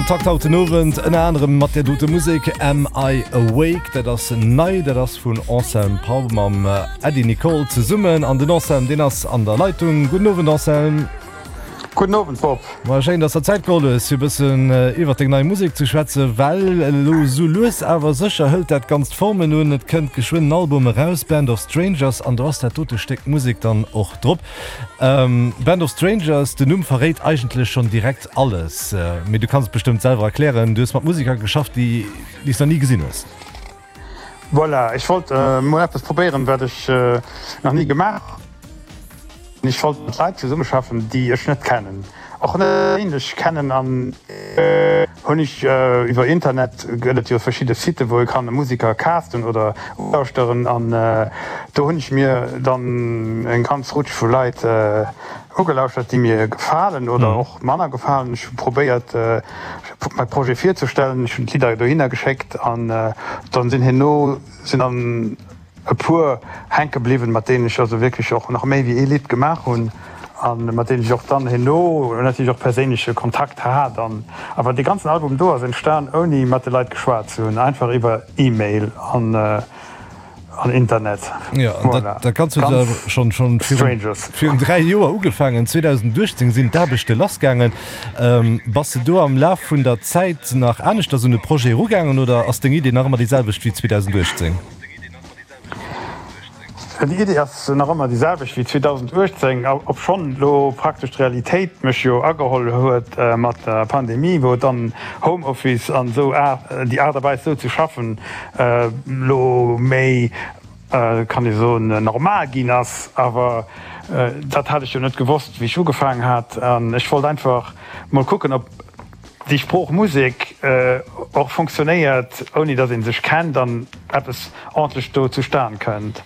Am Takt haut den Owend ënner anerem mat där dote Musek Am I Awake? Dat ass nei, dat ass vun Anselme Pau mam Äddi Nicol zesummen. An den Anselme, deen ass an der Leitung. Gudden Owend Anselme. Gudden Owend Bob. Ma schéin, dass der Zäit geholl hues fir e bëssen iwwert deng nei Musek ze schwätzen, well elo sou lues awer sécher hëlt dat Ganzt Formen un. Et kënnt geschwënn en Album eraus, Band of Strangers, an do ass dat dote Stéck Musek dann och drop. Band of Strangers, den Numm verréit eigentlech schonn direkt alles, mee du kanns et bestëmmt selwer erklären, Du hues mat Museker geschafft, déi s nach ni gesinn hues. Voilà, ech wollt mol eppes probéieren, wat ech nach ni gemaach hunn. Ech wollt mat Leit zesummeschaffen, déi ech net kennen, och net perséinlech kennen. An hunn ech iwwer Internet, gëtt et jo verschidde Siten, wou ee kann Museker casten oder ulauschteren. An do hunn ech mir dann eng ganz Rutsch vu Leit ugelauschtert, déi mir gefalen oder och manner gefalen. Ech hu probéiert, mäi Projet virzestellen. Ech hunn d'Lidder dohinner geschéckt an dann sinn herno sinn dann e puer hänke bliwwen, mat deenen ech also wierklech och nach méi wéi ee Lidd gemaach hunn a mat deenen ech och dann herno natierlech och perséinleche Kontakt hat. An awer dee ganzen Album do ass entstan ouni mat de Leit geschwat ze hunn, einfach iwwer E-Mail an an Internet. Jo, an dat, dat Ganzt huet jo schonn schonn virun, virun 3 Joer ugefaangen. 2018 sinn d'Aarbechte lassgaangen. Bass de do am Laf vun der Zäit nach aneschters un de Projet erugaangen oder ass deng Idee nach ëmmer déi selwecht wéi 2018? Déi Idee ass nach ëmmer déi selwecht wéi 2018, obschonn elo praktesch d'Realitéit mech jo ageholl huet mat der Pandemie, wou et dann Homeoffice an esou déi Aart a Weis esou ze schaffen elo méi, kann ee soen, normal ginn ass. Awer dat hat ech jo net gewosst, wéi ech ugefaangen hat. An ech wollt einfach mol kucken, ob déi Sprooch Musek och fonctionnéiert, ouni datt ee sech kennt an eppes ordentlech do zustan kënnt.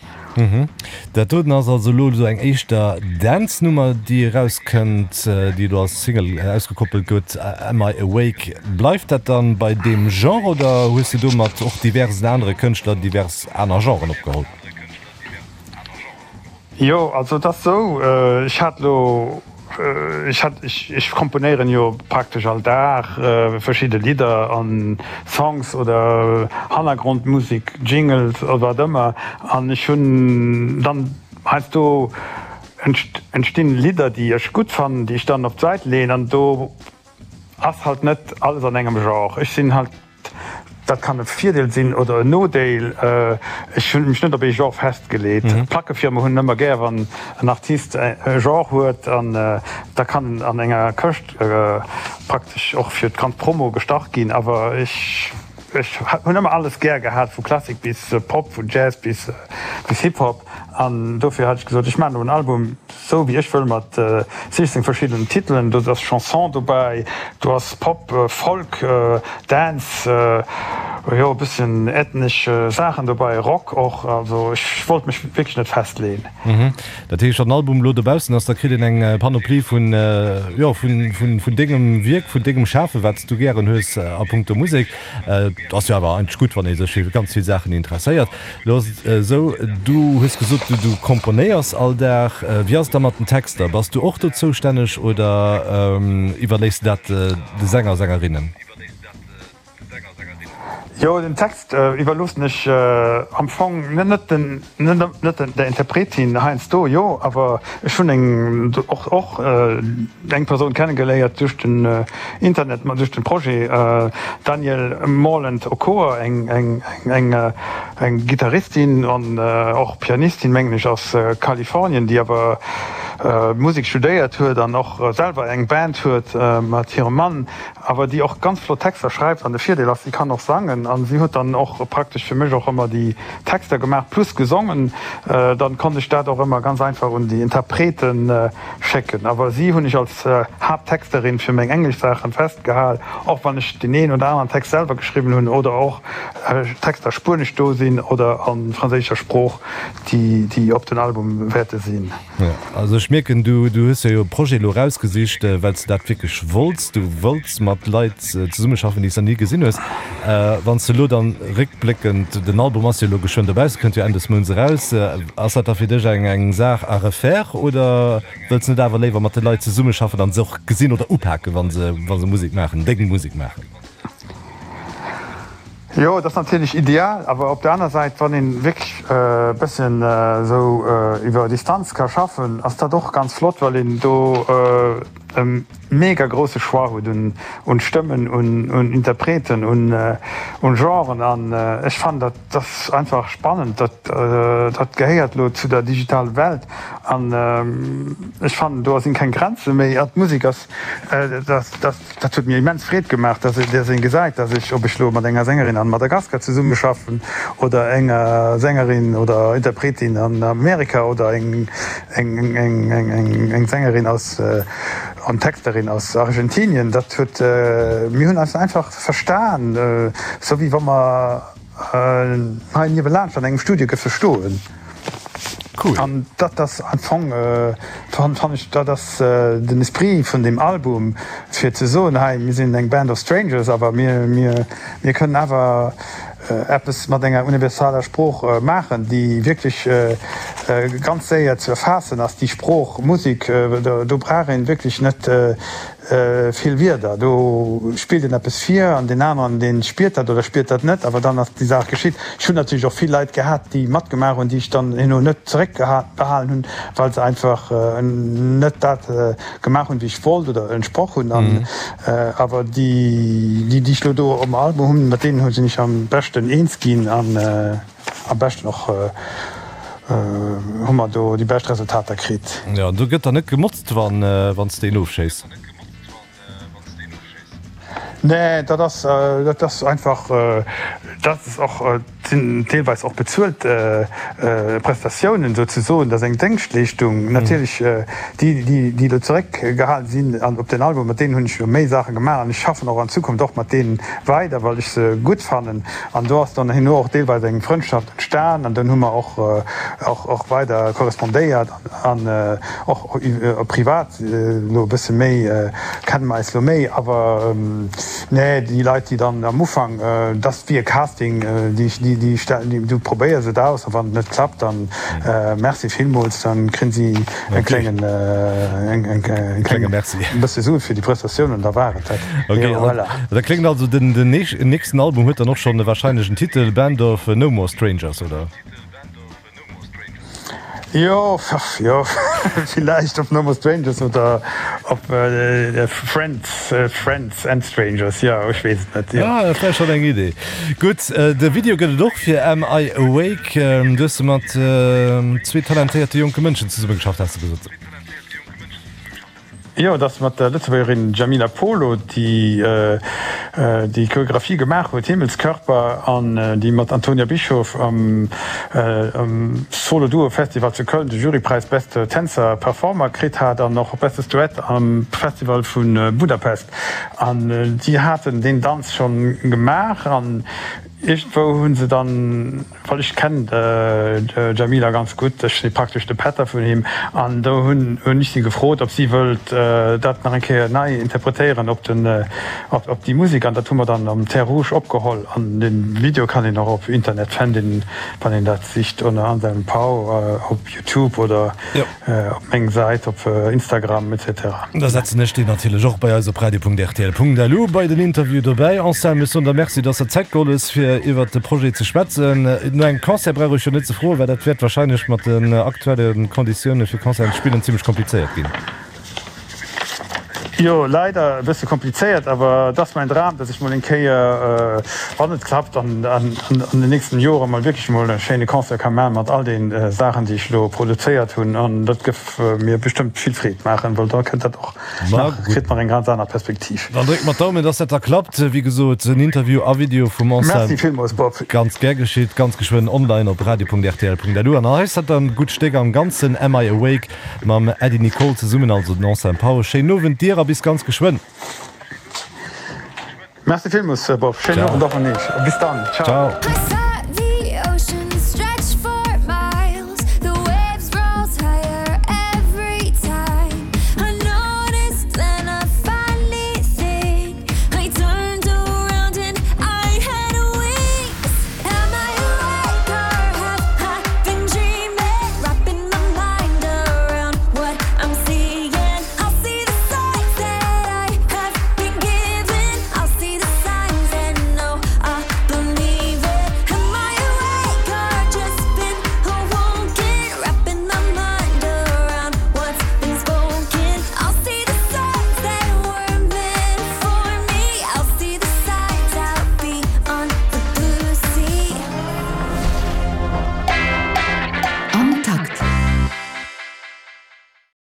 Dat doten ass also elo esou eng éischter Dance-Nummer, déi erauskënnt, déi elo als Single ausgekoppelt gëtt, Am I Awake? Bleift dat dann bei deem Genre oder hues de do mat och diversen anere Kënschtler divers aner Genren opgeholl? Jo, also et ass sou, ech hat elo, ech hat, ech komponéieren jo praktesch all Dag verschidde Lidder an Songs oder Hannergrondmusek, Jingles oder wat ëmmer. An ech hunn dann heiansdo entstinn Lidder, déi ech gutt fannen, déi ech dann op d'Säit leeën an do ass halt net alles an engem Genre. Ech sinn halt. Dat kann e Virdeel sinn oder en Nodeel. Ech hunn mech net op ee Genre festgeleet. D'Plackefirme hunn ëmmer gär, wann en Artist e Genre huet an da kann en an enger Këscht praktesch och fir d'ganz Promo gestach ginn. Awer ech hunn ëmmer alles gär gehat, vu Klassik bis Pop, vun Jazz bis Hip-Hop. An dofir hat ech gesot, ech maachen elo en Album, Sou wéi ech wëll mat 16 verschiddenen Titelen. Do ass Chanson dobäi, do ass Pop, Folk, Dance, jo e bësschen ethnesch Saachen dobäi, Rock och. Also ech wollt mech wierklech net festleeën. Dat heescht, wann den Album elo dobaussen ass, da kritt een eng Panoplie vun, jo, vun dengem Wierk, vun dengem Schafen, wat s du gären hues a punkto Musek. Et ass jo awer eigentlech gutt, wann ee sech fir ganz vill Saachen interesséiert. Lo ass et esou, du hues gesot, du komponéiers all Dag. Wéi ass et da mat den Texter? Bass du och do zoustänneg oder iwwerléiss de dat de Sänger, Sängerinnen? Jo, den Text iwwerloossen ech am Fong net der Interpretin, heiansdo jo, awer ech hunn eng och och eng Persoun kennegeléiert duerch den Internet, ma duerch den Projet, Danielle Morland Okoa, eng eng eng eng Gittaristin an och Pianistin, mengen ech, aus Kalifornien, déi awer Musek studéiert huet an och selwer eng Band huet mat hirem Mann, awer déi och ganz flott Texter schreift. An de Virdeel ass, si kann och sangen an si huet dann och praktesch fir mech och ëmmer déi Texter gemaach plus gesongen. Dann konnt ech dat och ëmmer ganz einfach un déi Interpreten schécken. Awer si hunn ech als Haapttexterin fir meng englesch Saachen festgehal, och wann ech deen een oder aneren Text selwer geschriwwen hunn oder och Texter spuenesch do sinn oder a franséischer Sprooch, déi op den Album wäerte sinn. Jo, also ech. Ech mierken, du hues jo e Projet elo erausgesicht, well s de dat wierklech wollts. Du wëlls mat Leit zesummeschaffen, déi s de nach ni gesinn hues. Wann s de elo dann réckbléckend, den Album ass jo elo geschwënn dobaussen, kënnt jo Enn des Mounts eraus, ass dat da fir dech eng Saach à refaire oder wëlls de net awer léiwer mat de Leit zesummeschaffen an se och gesinn oder upaken, wa se Musek maachen, deng Musek maachen? Jo, et ass natierlech ideal, awer op der aner Säit, wann een wierklech e bësschen esou iwwer Distanz ka schaffen, ass dat och ganz flott, well een do e mega grousse Choix huet un Stëmmen, un Interpreten, un Genren an ech fannen dat ass einfach spannend. Dat gehéiert elo zu der digitale Welt an ech fannen do sinn keng Grenze méi an d'Musek ass dat. Dat huet mir immens Freed gemaach, dass een gesäit, dass ech, ob ech lo mat enger Sängerin an Madagaskar zesummeschaffen oder enger Sängerin oder Interpretin an Amerika oder eng Sängerin aus an Texterin aus Argentinien, dat huet, mir hunn eis einfach verstan, sou wéi wa mer hei niewelaanscht an engem Studio géife stoen. Cool. An dat ass am Fong, fannen ech, dat ass den Esprit vun deem Album, fir ze soen, hei, mir sinn eng Band of Strangers, awer mir, mir, mir kënnen awer eppes mat enger universaler Sprooch maachen, déi wierklech ganz séier ze erfaassen ass. Déi Sprooch Musek, do brauch een wierklech net Vill Wierder, do spillt een eppes vir an deen aneren, dee spiert dat oder spiert dat net, awer dann ass déi Saach geschitt. Ech hunn natierlech och vill Leit gehat, déi matgemaach hunn, déi ech dann herno net zeréckbehalen hunn, well se einfach net dat gemaach hunn, wéi ech wollt oder entsproch hunn. An awer déi, déi ech elo do um Album hunn, mat deenen sinn ech am beschten eens ginn an. Am beschten och hu mer do déi bescht Resultater kritt. Jo, do gëtt dann net gemotzt, wann s de een ofschéiss? Nee, dat ass, dat ass einfach, dat ass och, sinn deelweis och bezuelt Prestatiounen souzesoen. Dat ass eng Déngschtleeschtung. Natierlech déi, déi elo zeréckgehalen sinn an op den Album, mat deenen hunn ech elo méi Saache gemaach an ech schaffen och an Zukunft och mat deenen weider, well ech se gutt fannen. An do ass dann herno och deelweis eng Frëndschaft entstan an dunn hu mer och och weider korrespondéiert an och privat elo e bësse méi, kenne mer eis elo méi. Awer nee, déi Leit, déi dann am Ufank, dat ass wéi e Casting, déi déi du probéiers et aus a wann et net klappt, dann merci villmools, dann kréien si e kléngen e klénge Merci. E bësse Sue fir déi Prestatioun an da war et dat. Ok, Jo, voilà. Da kléngt also den den nächsten Album huet dann och schonn wahrscheinlech en Titel, Band of No More Strangers, oder? Jo, jo, villäicht op No More Strangers oder op Friends, Friends and Strangers, jo, ech weess et net, jo. Ah, dat wär schonn eng Idee. Gutt, de Video gëtt et och fir Am I Awake. Du hues mat zwee talentéierte jonke Mënschen zesummegeschafft, has de gesot. Jo, et ass mat der Lëtzebuergerin Djamila Polo, déi déi Choreographie gemaach huet, Himmelskörper, an déi mat Antonia Bischoff am Solo Duo Festival zu Köln de Jurypräis Beste Tänzer Performer kritt hat an och Bestes Duett am Festival vu Budapest. An déi haten deen Danz schonn gemaach an iergendwou hu se dann, well ech kennen d'Djamila ganz gutt, ech si praktesch de Pätter vun him, an do hunn ech si gefrot, ob si wëllt dat nach eng Kéier nei interpretéieren op den, op déi Musek. An dat hu mer dann am Terres Rouges opgeholl an de Video kann een och op Internet fänden, wann een dat sicht ënner Anselme Pau op Youtube oder. Op meng Säit op Instagram etc. Da setzen ech déi natierlech och bei eis op radio.rtl.lu bei den Interview dobäi. Anselme, ech soen der Merci, dass der Zäit geholl hues fir iwwert de Projet ze schwätzen. No engem Concert brauch ech jo net ze froen, well dat wäert wahrscheinlech mat den aktuelle Konditioune fir Concerten ze spillen zimmlech komplizéiert ginn. Jo, leider e bësse komplizéiert, awer et ass mäin Dram, dass ech mol eng Kéier, wann et klappt, an den nächsten Joren mol wierklech mol e schéine Concert ka maachen mat all den Saachen, déi ech elo produzéiert hunn. An dat gëff mir bestëmmt vill Freed maachen, well da kënnt dat och nach, kritt nach eng ganz aner Perspektiv. Dann drécke mer d'Daumen, dass dat da klappt. Wéi gesot, en Interview a Video vum Anselm. Merci villmools, Bob. Ganz gär geschitt, ganz geschwënn online op radio.rtl.lu. An hei ass dat dann gutt Stéck am Ganzen, Am I Awake? Mam Äddi Nicole zesummen, also den Anselme Pau. Schéinen Owend dir a bis ganz geschwënn. Merci villmools Bob, schéinen Owend och un iech a bis dann. Ciao. Ciao.